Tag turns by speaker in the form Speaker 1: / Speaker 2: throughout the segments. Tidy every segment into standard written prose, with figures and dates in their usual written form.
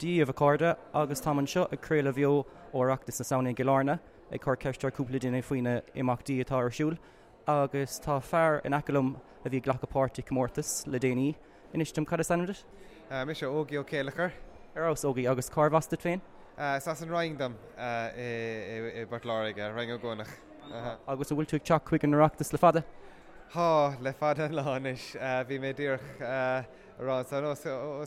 Speaker 1: Dia dhaoibh a chairde agus táim anseo ag craoladh bheo ó Oireachtas na Samhna i gCill Airne ag cur ceist ar cúpla duine faoi na imeachtaí atá ar siúl agus tá fear in aice liom a bhí ag glacadh páirt i comórtas le déanaí. Inis dom cad is ainm duit?
Speaker 2: Mise Ógie Ó Céileachair.
Speaker 1: Ar fheabhas Ógie agus cárbh as duit féin?
Speaker 2: Is as an Rinn dom i bPort Láirge, Rinn Ó gCuanach.
Speaker 1: Agus an bhfuil tú ag teacht chuig an Oireachtas le fada?
Speaker 2: Tá, le fada an lá anois. Bhí mé díreach. a rá ansan os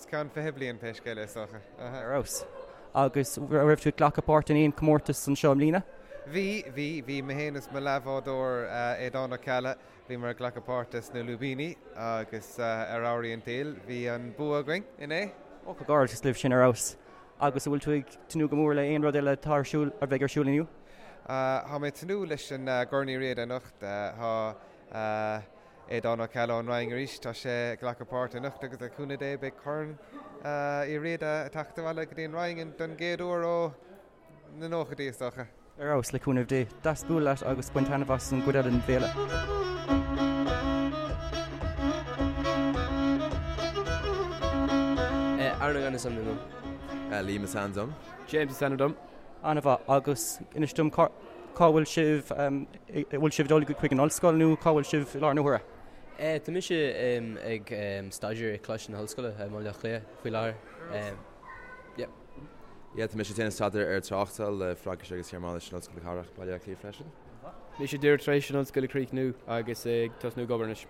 Speaker 2: cionn 20 bliain pé scéal é is dócha.
Speaker 1: Ar fheabhas. Agus raibh tú ag glacadh páirt in aon comórtas anseo i mbliana?
Speaker 2: Bhí, bhí. Bhí mé féin is mo leathbhádóir Aodán Ó Ceallaigh, bhíomar ag glacadh páirte sna Lúibíní agus ar amhraí an tsaoil bhí an bua againn inné.
Speaker 1: Ó, comhghairdeas libh sin ar fheabhas. Agus an bhfuil tú ag tnúth go mór le aon rud eile atá ar siúl, a bheidh ar siúl inniu?
Speaker 2: Tá mé ag tnúth leis an gCorn Uí Riada anocht. Tá. Aodán Ó Ceallaigh ón Rinn arís, tá sé ag glacadh páirt anocht agus le cúnamh Dé beidh Corn Uí Riada ag teacht abhaile go dtí an Rinn don gcéad uair ó na nóchaidí is dócha.
Speaker 1: Ar fheabhas, le cúnamh Dé. Deas bualadh leat agus bain taitneamh as an gcuid eile den bhféile.
Speaker 3: Aaron Ó Gainnigh is ainm dom.
Speaker 4: Liam is ainm dom.
Speaker 5: James is ainm dom.
Speaker 1: An-mhaith. Agus inis dom cá bhfuil sibh, an bhfuil sibh ag dul chuig an ollscoil nó cá bhfuil sibh i láthair na huaire?
Speaker 3: Tá mise ag staidéar i Coláiste na hOllscoile i mBaile Átha Cliath faoi láthair.
Speaker 4: Yeah. Yeah, tá mise ag déanamh staidéar ar tráchtáil le Fraincis agus Gearmáinis in Ollscoil na Cathrach, Baile Átha Cliath freisin.
Speaker 5: Mise díreach tar éis an ollscoil a chríochnú agus ag tosnú ag obair anois.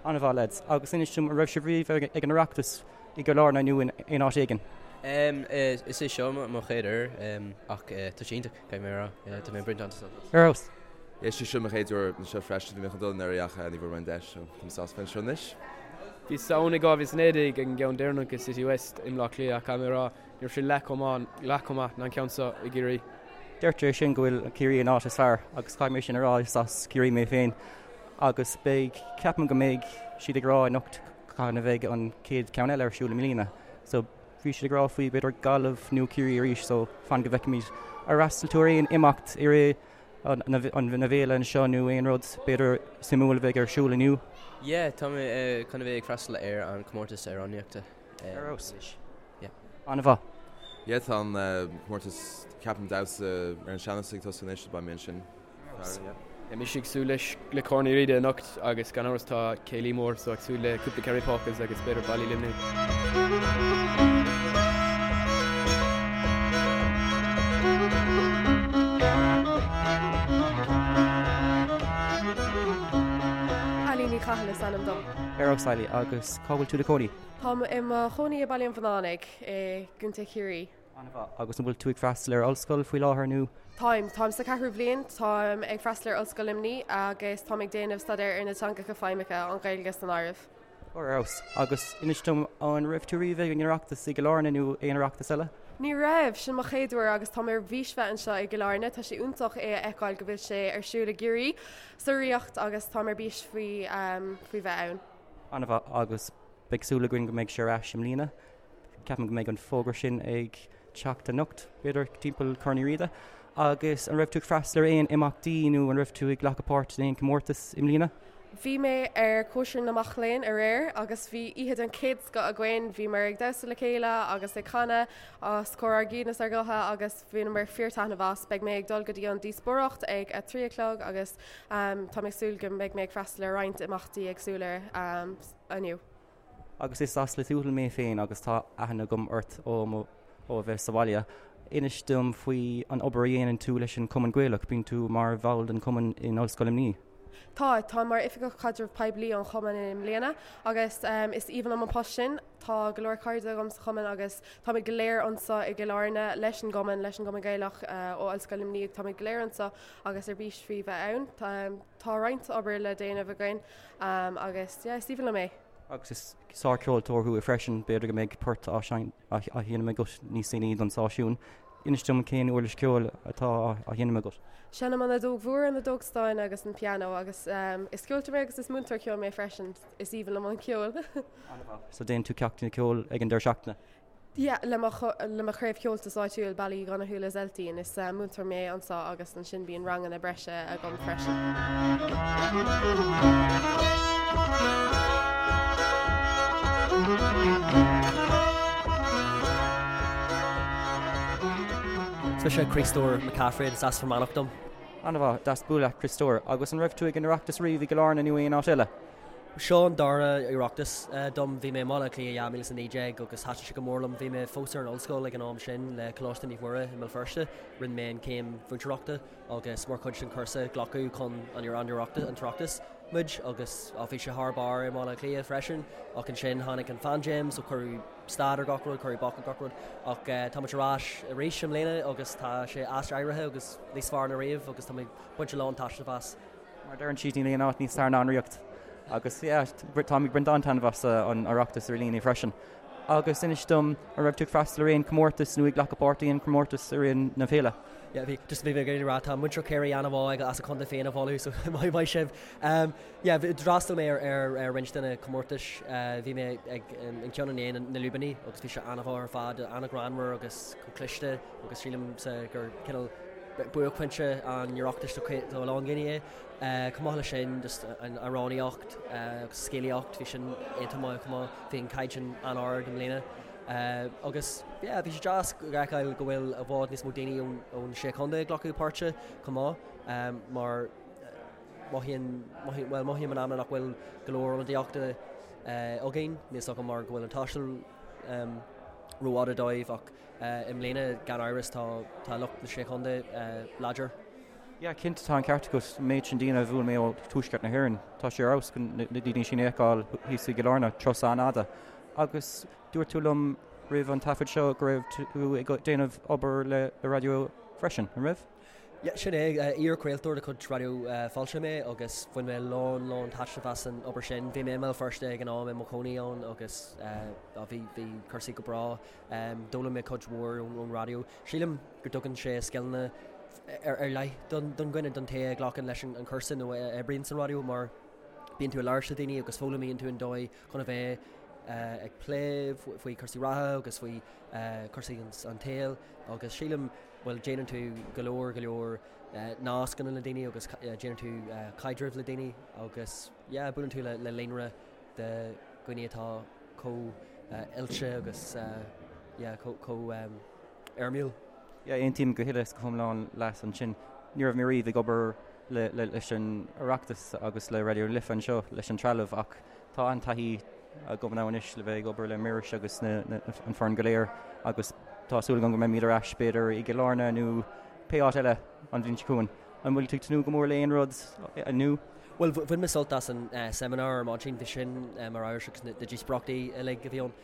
Speaker 1: An-mhaith lads. Agus inis dom, an raibh sibh riamh ag an Oireachtas i gCill Airne nó in aon áit éigin?
Speaker 3: Is é seo mo chéad uair ach tá sé iontach, caithfidh mé a rá. Tá mé ag baint an-sult
Speaker 1: as. Ar fheabhas.
Speaker 4: Is é seo mo chéad uair anseo freisin, bhí mé chun dul anuraidh ach ní bhfuair mé an deis, so táim sásta bheith anseo anois.
Speaker 5: Bhíos ann i 2019 ag an gceann deireanach i City West i mBleá Cliath ach caithfidh mé a rá, Ní raibh sé leath chomh maith, leath chomh maith ná an ceann seo i gCiarraí.
Speaker 1: Deirtear é sin go bhfuil Ciarraí an áit is fearr agus caithfidh mé sin a rá, is as Ciarraí mé féin agus beidh, ceapaim go mbeidh siad ag rá anocht cathain a bheidh an chéad ceann eile ar siúl i mbliana. So bhí siad ag rá faoi b'fhéidir Gaillimh nó Ciarraí arís so fan go bhfeicfimid. Ar fhreastail tú ar aon imeacht i rith na bhféile anseo nó aon rud b'fhéidir suimiúil a bheidh ar siúl inniu?
Speaker 3: Yeah, tá mé chun a bheith ag freastal ar an comórtas amhránaíochta.
Speaker 1: Ar fheabhas. Yeah. An-mhaith.
Speaker 4: Yeah, tá an comórtas ceapaim damhsa ar an sean-nós ag tosú anois, beidh mé ansin.
Speaker 5: Yeah, mise ag súil leis le Corn Uí Riada anocht agus gan amhras tá céilí mór so ag súil le cúpla Kerry Polkas agus b'fhéidir Baile Luimnigh.
Speaker 6: Eilín Ní Chathail is ainm dom.
Speaker 1: Ar fheabhas Eilí, agus cá bhfuil tú i do chónaí?
Speaker 6: Táim i mo chónaí i Baile an Bhunánaigh i gContae Chiarraí.
Speaker 1: An-mhaith. Agus an bhfuil tú ag freastal ar ollscoil faoi láthair nó?
Speaker 6: Táim. Táim sa cheathrú bhliain. Táim ag freastal ar Ollscoil Luimnigh agus táim ag déanamh staidéar ar na teangacha feidhmeacha, an Ghaeilge san áireamh.
Speaker 1: Ar fheabhas. Agus inis dom, an raibh tú riamh ag an Oireachtas i gCill Airne nó aon Oireachtas eile?
Speaker 6: Ní raibh! Sin mo chéad uair agus táim ar bís bheith anseo i gCill Airne. Tá sé iontach é a fheiceáil go bhfuil sé ar siúl i gCiarraí, sa Ríocht agus táim ar bís faoi faoi bheith ann.
Speaker 1: An-mhaith agus beidh súil againn go mbeidh sé ar ais i mbliana. Ceapaim go mbeidh an fógra sin ag teacht anocht, b'fhéidir, timpeall Corn Uí Riada. Agus an raibh tú ag freastal ar aon imeachtaí nó an raibh tú ag glacadh páirt in aon comórtas i mbliana?
Speaker 6: Bhí mé ar cóisir na mac léinn aréir agus bhí oíche den chéad scoth againn. Bhíomar ag damhsa le chéile agus ag canadh os comhair ár gcinn is ár ngutha agus bhaineamar fíor taitneamh as. Beidh mé ag dul go dtí an díospóireacht ag a 3 a chlog agus tá mé ag súil go mbeidh mé ag freastal ar roinnt imeachtaí éagsúla inniu.
Speaker 1: Agus is as Lios Tuathail mé féin agus tá aithne agam ort ó mo ó a bheith sa bhaile. Inis dom faoi an obair a dhéanann tú leis an Chumann Gaelach. Bíonn tú mar bhall den chumann in Ollscoil Luimnigh.
Speaker 6: Tá, táim mar Oifigeach Caidreamh Poiblí an chumainn i mbliana agus is aoibhinn liom an post sin. Tá go leor cairde agam sa chumann agus táimid go léir anseo i gCill Airne leis an gcumann, leis an gCumann Gaelach ó Ollscoil Luimnigh. Táimid go léir anseo agus ar bís faoi bheith ann. Tá roinnt obair le déanamh againn agus yeah, is aoibhinn liom é.
Speaker 1: Agus is sárcheoltóir thú freisin, b'fhéidir go mbeidh port á sheinm agat níos déanaí don stáisiún. Inis dom cén uirlis ceoil atá á sheinm agat?
Speaker 6: Seinnim an fheadóg mhór, an fheadóg stáin agus an pianó agus is ceoltóir mé agus is múinteoir ceoil mé freisin. Is aoibhinn liom an ceol.
Speaker 1: An-mhaith. So déanann tú ceachtanna ceoil ag an deireadh seachtaine?
Speaker 6: Yeah, le mo le mo chraobh Cheoltais áitiúil, Baile Uí Dhonnchú le Zeltín. Is múinteoir mé anseo agus ansin bíonn ranganna breise agam freisin.
Speaker 7: Is mise Críostóir McCaffrey is as Fear Manach dom.
Speaker 1: An-mhaith, deas bualadh leat Críostóir. Agus an raibh tú ag an Oireachtas riamh i gCill Airne nó aon áit eile?
Speaker 7: Seo an dara Oireachtas dom. Bhí mé i mBaile Átha Cliath 2019 agus thaitin sé go mór liom. Bhí mé fós ar an ollscoil ag an am sin le Coláiste Naomh Muire i mBéal Feirste. Rinne mé an chéim mhúinteoireachta agus mar chuid den chúrsa glacadh chun an Oireachtas muid agus bhí sé thar barr i mBaile Átha Cliath freisin ach ansin tháinig an phaindéim so cuireadh stad ar gach rud, cuireadh bac ar gach rud ach tá muid ar ais arís i mbliana agus tá sé aiséirithe agus níos fearr ná riamh agus tá mé ag baint a lán taitneamh as.
Speaker 1: Mar a deireann siad níl aon áit níos fearr ná an Ríocht agus yeah táim ag baint an-taitneamh as an Oireachtas ar líne freisin. Agus inis dom, an raibh tú ag freastal ar aon chomórtas nó ag glacadh páirt i aon chomórtas i rith na féile?
Speaker 7: Yeah, bhí, just bhí mé ag iarraidh a rá, tá muintir Chiarraí an-mhaith as a contae féin a mholadh, so maith maith sibh. Um, yeah, d'fhreastail mé ar, ar, ar roinnt de na comórtais, uh, bhí mé ag an, an ceann inné, na, na Lúibíní, agus bhí sé an-mhaith ar fad, an-ghreannmhar agus chomh cliste, agus sílimse gur cineál buaicphointe an Oireachtais do, do a lán daoine é. Chomh maith leis sin, just an amhránaíocht agus scéalaíocht, bhí sin iontach maith chomh maith. Bhí an caighdeán an-ard i mbliana. Agus yeah, bhí sé deas a fheiceáil go bhfuil i bhfad níos mó daoine ón ón Sé Chontae ag glacadh páirte chomh maith, mar mothaíonn, mothaíonn, bhuel, mothaím in amanna nach bhfuil go leor ionadaíochta againn, níl 's agam mar go bhfuil an taisteal rófhada dóibh ach i mbliana gan amhras tá tá lucht na Sé Chontae láidir.
Speaker 1: Yeah, cinnte tá an ceart agat, an méid sin daoine a bhuail mé ó tuaisceart na hÉireann, tá sé ar fheabhas chun na daoine sin a fheiceáil thíos i gCill Airne, turas an-fhada. Agus dúirt tú liom roimh an taifead seo go raibh tú ag déanamh obair le raidió freisin, an raibh?
Speaker 7: Yeah, sin é, iar-chraoltóir de chuid Raidió Fáilte mé agus bhain mé lán lán taitneamh as an obair sin. Bhí mé i mBéal Feirste ag an am i mo chónaí ann agus bhí bhí cúrsaí go breá. D'fhoghlaim mé cuid mhór ón raidió. Sílim go dtugann sé scileanna ar leith don dhuine, don té a ghlacann leis an chúrsa nó a oibríonn sa raidió mar bíonn tú ag labhairt le daoine agus foghlaimíonn tú an dóigh chun a bheith ag plé faoi chúrsaí reatha agus faoi chúrsaí an tsaoil agus sílim, bhuel, déanann tú go leor, go leor nascanna le daoine agus déanann tú caidreamh le daoine agus yeah, buaileann tú le líonra de dhaoine atá chomh oilte agus yeah, chomh éirimiúil.
Speaker 1: Yeah, aontaím go huile is go hiomlán leat ansin. Ní raibh mé riamh ag obair le leis an Oireachtas agus le Raidió na Life anseo leis an trealamh ach tá an-taithí agam now anois le bheith ag obair le Muiris agus na, na, an foireann go léir agus tá súil agam go mbeimid ar ais b'fhéidir i gCill Airne nó pé áit eile an bhliain seo chugainn. An bhfuil tú ag tnúth go mór le aon rud inniu?
Speaker 7: Bhuel, bhain mé sult as an seimineár ar maidin, bhí sin ar fheabhas agus na díospóireachtaí uilig a bhí ann.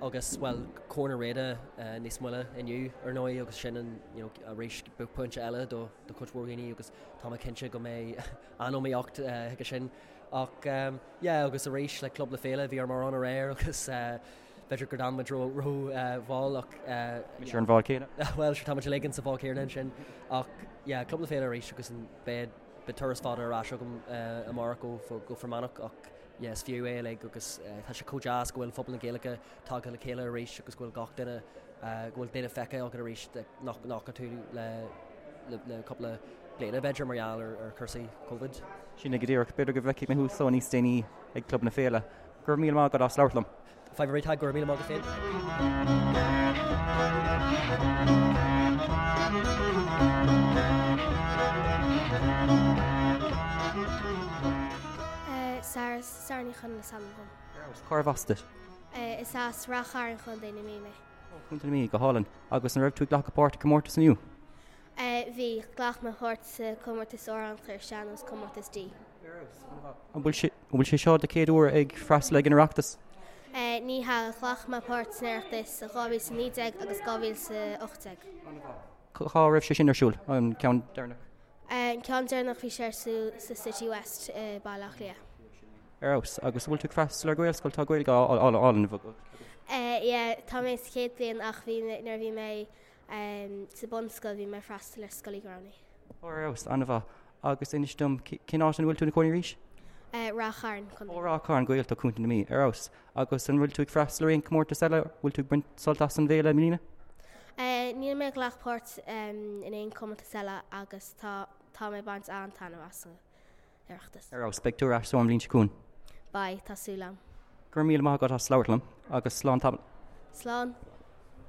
Speaker 7: Agus, bhuel, Corn Uí Riada níos moille inniu, ar ndóigh, agus sin an, you know, arís buaicphointe eile do do chuid mhór dhaoine agus tá mé cinnte go mbeidh an-iomaíocht chuige sin. Ach, yeah, agus arís le Club na Féile, bhí orm amhrán aréir agus b'fhéidir gur d'fhan muid ró ró mhall ach.
Speaker 1: Mise ar an bhád céanna.
Speaker 7: Bhuel, sure, tá muid uilig insa bhád céanna ansin. Ach, yeah, Club na Féile arís agus an beidh beidh turas fada ar ais agam amárach go go Fear Manach ach, yeah, is fiú é uilig agus tá sé chomh deas go bhfuil phobal na Gaeilge tagtha le chéile arís agus go bhfuil gach duine, go bhfuil duine feicthe agat arís nach bhfaca tú le le cúpla bliana b'fhéidir mar gheall ar ar chúrsaí Covid.
Speaker 1: Sin é go díreach. B'fhéidir go bhfeicfidh mé thú so níos déanaí ag Club na Féile. Go raibh míle maith agat as labhairt liom.
Speaker 7: Fadhb ar bith, Tadhg, go raibh míle maith agat féin.
Speaker 8: Sarah, Sarah Ní Chonaill is ainm dom.
Speaker 1: Cárbh as duit?
Speaker 8: Is as Ráth Chairn, Contae na Mí mé.
Speaker 1: Ó, Contae na Mí, go hálainn. Agus an raibh tú ag glacadh páirt i gcomórtas inniu?
Speaker 8: Bhí, ghlac mé páirt sa comórtas amhránaíochta ar sean-nós, comórtas D.
Speaker 1: An bhfuil sé seo do chéad uair ag freastal ag an Oireachtas?
Speaker 8: Ní hea, ghlac mé páirt san Oireachtas i 2019 agus 2018.
Speaker 1: Cá raibh sé sin ar siúl, an ceann deireanach?
Speaker 8: An ceann deireanach bhí sé ar siúl sa City West i Baile Átha Cliath.
Speaker 1: Ar fheabhas. Agus an bhfuil tú ag freastal ar Ghaelscoil? Tá Gaeilge álainn agat.
Speaker 8: Yeah, tá mé sa chéad bhliain ach bhí nuair a bhí mé Sa bunscoil bhí mé ag freastal ar Scoil Uí Ghramhnaigh.
Speaker 1: Ó, ar fheabhas, an-mhaith. Agus inis dom, cén áit ina bhfuil tú ina cónaí arís?
Speaker 8: Ráth Chairn,
Speaker 1: Co. Ó, Ráth Chairn, Gaeltacht Chontae na Mí. Ar fheabhas. Agus an bhfuil tú ag freastal ar aon chomórtas eile? Bhfuil tú ag baint sult as an bhféile i mbliana?
Speaker 8: Níl mé ag glacadh páirt in aon chomórtas eile agus tá tá mé ag baint an-taitneamh as an Oireachtas.
Speaker 1: Ar fheabhas. Beidh tú ar ais so an bhliain seo chugainn.
Speaker 8: Beidh, tá súil agam.
Speaker 1: Go raibh míle maith agat as labhairt liom agus slán tamall.
Speaker 8: Slán.